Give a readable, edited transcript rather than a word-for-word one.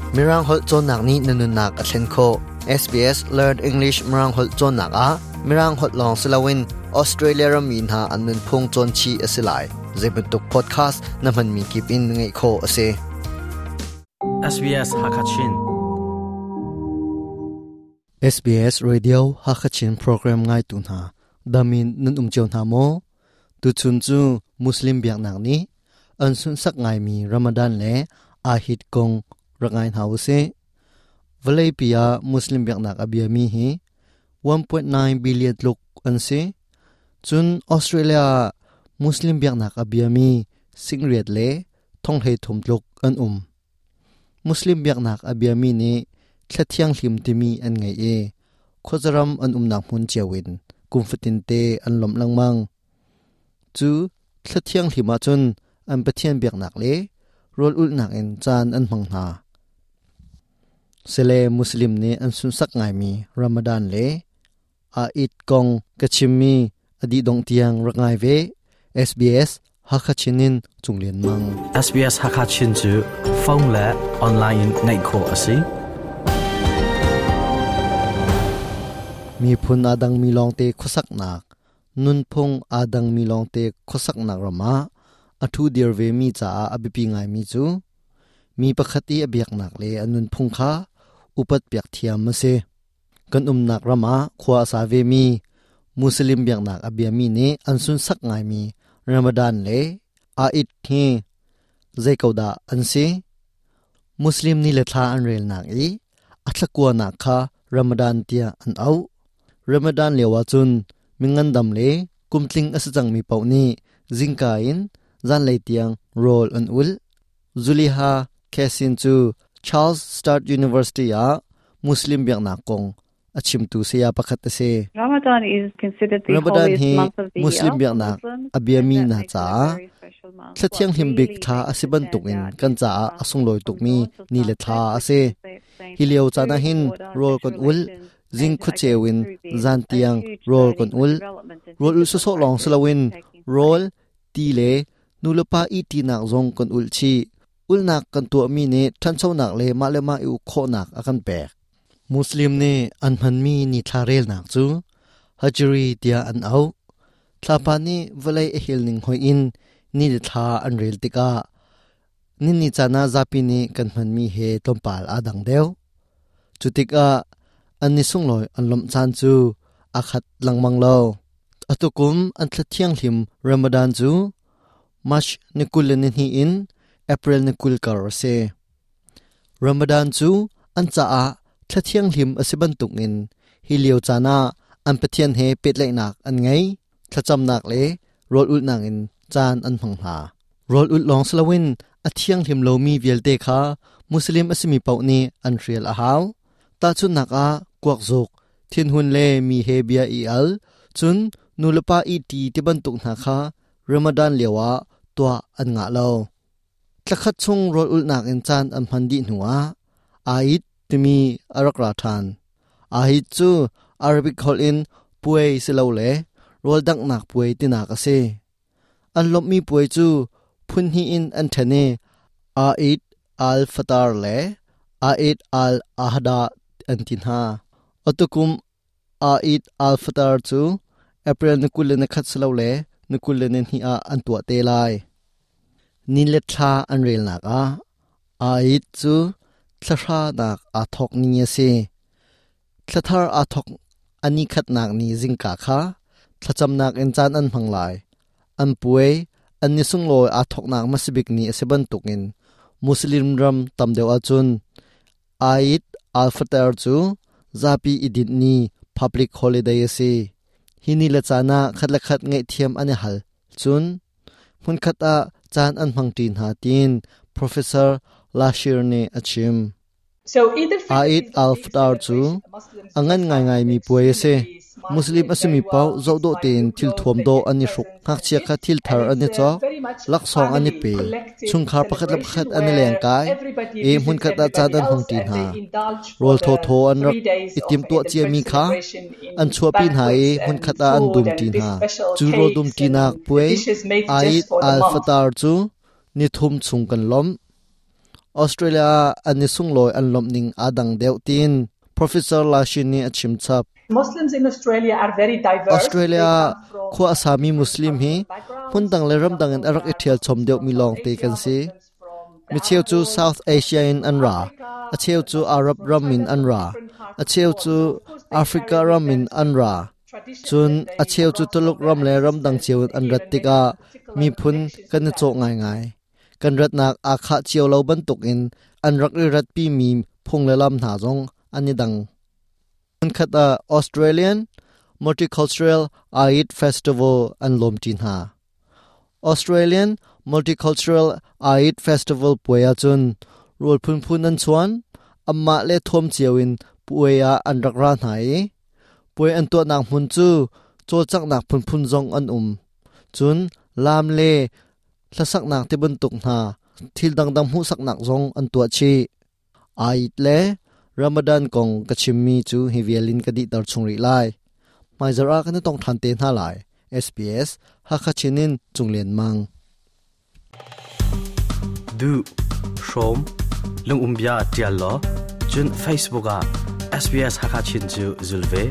Mirang holh cawnnak nih na nunnak a thlen khawh. SBS Learn English Mirang holh cawnnak ah Mirang holh lawng si loin Australia rammi hna an nunphung cawn chih a si lai. Zeibantuk podcast na hmanmi kip in ngaih khawh a si. SBS Hakachin. SBS Radio Hakachin program ngaitu hna damin nan um cio hna maw? Tuchun cu Muslim biaknak nih an sunhsak ngaimi Ramadan le Ahit kong rak ngai hna usih. Vawleipi ah Muslim biaknak a biami hi 1.9 billion tluk an si. Cun Australia ah Muslim biaknak a biami singriat le thonghlei thum tluk an um. Muslim biaknak a biami nih thla thianghlim timi an ngei i khuazaram an umnak hmun cio in kum fatinte an lawmh lengmang. Cu thla thianghlim ahcun an Pathian biaknak le rawl ulhnak in caan an hmang hna. Sile Muslim nih an sunsak ngaimi Ramadan le Eid kong ka chimmi a dih dongh tiang rak ngai ve. SBS Hakha Chin in Cung Lian Mang. SBS Hakha Chin cu phone le online in ngaih khawh a si. Miphun aa dangmi lawngte khuasaknak, nunphung aa dangmi lawngte khuasaknak ram ah a ṭhu dir vemi caah a biapi ngaimi cu mi pakhat i a biaknak le a nunphung kha upat piak thiam a si. Kan umnak ram ah khua a sa vemi Muslim biaknak a biami nih an sunsak ngaimi Ramadan le Eid hi zei ko dah an si? Muslim ni le thla an relnak i a thlakuanak kha Ramadan tiah an auh. Ramadan lio ahcun mingandam le kumtling a si cangmi paoh nih zingka in zanlei tiang rawl an ulh. Zuliha Khasin cu Charles Sturt University ah Muslim biaknak kong a chimtu saya pakhat a si. Ramadan is considered the Ramadan holiest hi month of the Muslim year for biaknak Muslims, a biami and that hna makes it a caah very special month. thla What thianghlim bik really thla makes a si it stand bantukin out kan is caah a fasting sunglawi from tukmi dawn till ni le sunset, thla a which si. translates Hi lio to caan ah food, hin water, rawl sexual kan ul, relations, zing and I khuaceu guess in through this, zan a tiang huge rawl kan learning and ul. development and Rawl ul discipline sawsawh lawng practice si loin is taking rawl, place. ti le nulepa ihṭinak zong kan ulh chih. Ulhnak kan tuahmi nih ṭhanchonak le mah le mah i uk khawhnak a kan pek. Muslim nih an hmanmi nithla relnak cu Hijri tiah an auh. Thlapa nih vawlei a hel ning hoih in ni le thla an rel tikah nini caan ah zapi nih kan hmanmi he tlawmpal aa dang deuh. Cu tikah an ni sunglawi an lawmh caan cu aa khat lengmang lo. Atukum an thla thianghlim Ramadan cu March ni 22 in April ni 20 kar a si. Ramadan cu an caah thla thianghlim a si bantukin hi lio caan ah an Pathian he pehtlaihnak an ngei, thlacamnak le rawl ulhnak in caan an hmang hna. Rawl ulh lawng si loin a thianghlim lomi vialte kha Muslim a simi paoh nih an hrial a hau. Tahchunhnak ah kuakzuk, thinhun le mi he bia i al, cun nulepa ihṭi ti bantuk hna kha Ramadan lioah tuah an ngah lo. Thlakhat chung rawl ulhnak in caan an hman dih hnuah Eid timi a rak ra ṭhan. Eid cu Arabic holh in puai silole rawl danghnak puai tinak a si. An lawmhmi puai cu phun hnih in an ṭhen i Eid al-Fitr le Eid al-Adha an ti hna. Atukum Eid al-Fitr cu April ni 21 silole ni 22 ah an tuah te lai. Ni le thla an relnak ah Eid cu thlahra nak aa thawk ni a si. Thlathar aa thawk a ni khatnak ni zingka kha thlacamnak in caan an hmang lai. An puai, an ni sunglawi aa thawknak hmasabik ni a si bantukin Muslim ram tam deuh ahcun Eid al-Fitr cu zapi i dinh ni public holiday a si. Hi ni le caan ah khat le khat ngaihthiam an i hal. Cun hmunkhat ah caan an hmangṭi hna tiin Professor Lashir nih a chim. Eid al-Fitr cu a ngan ngaingaimi puai a si. Muslim a simi paoh zohdawh tein thilthuam dawh an i hruk. Ngakchia kha thil thar an i cawk, laksawng an i pe, chungkhar pakhat le pakhat an i lengkai i hmunkhat ah caan an hmangṭi hna. Rawl thawthaw an rak i timhtuah ciami kha an chuahpi hna i hmunkhat ah an dumṭi hna. Cu rawl dumṭinak puai Eid al-Fitr cu nithum chung kan lawmh. Australia ah an i sunglawi an lawmh ning aa dang deuh tiin Professor Lashin nih a chim chap. Muslims in Australia are very diverse. Australia ah khua a sami Muslim hi hmundang le ramdang in a rak i ṭhial chom deuhmi lawngte kan si. Micheu cu South Asia in an ra, a cheu cu Arab ram in an ra, a cheu cu Africa ram in an ra. Cun a cheu cu Tuluk ram le ramdang cio in an rat tikah miphun kan i cawh ngaingai. Kan ratnak aa khah cio lo bantukin an rak i ratpimi phung le lam hna zong an i dang. Hmunkhat ah Australian Multicultural Eid Festival an lawmṭi hna. Australian Multicultural Eid Festival puai ahcun rawl phunphun an chuan, anmah le thuam cio in puai ah an rak ra hna i puai an tuahnak hmun cu cawlcanghnak phunphun zong an um. Cun laam le hlasaknak ti bantuk hna thil dangdang hmuhsaknak zong an tuah chih. Eid le Ramadan kong ka chimmi cu hi vial in ka dihter chung rih lai. Hmaizarh ah kan i tong ṭhan te hna lai. SBS Hakha Chin in Cung Lian Mang. Duh, hrawm, lungumbia ṭial law, cun Facebook ah SBS Hakha Chin cu zul ve.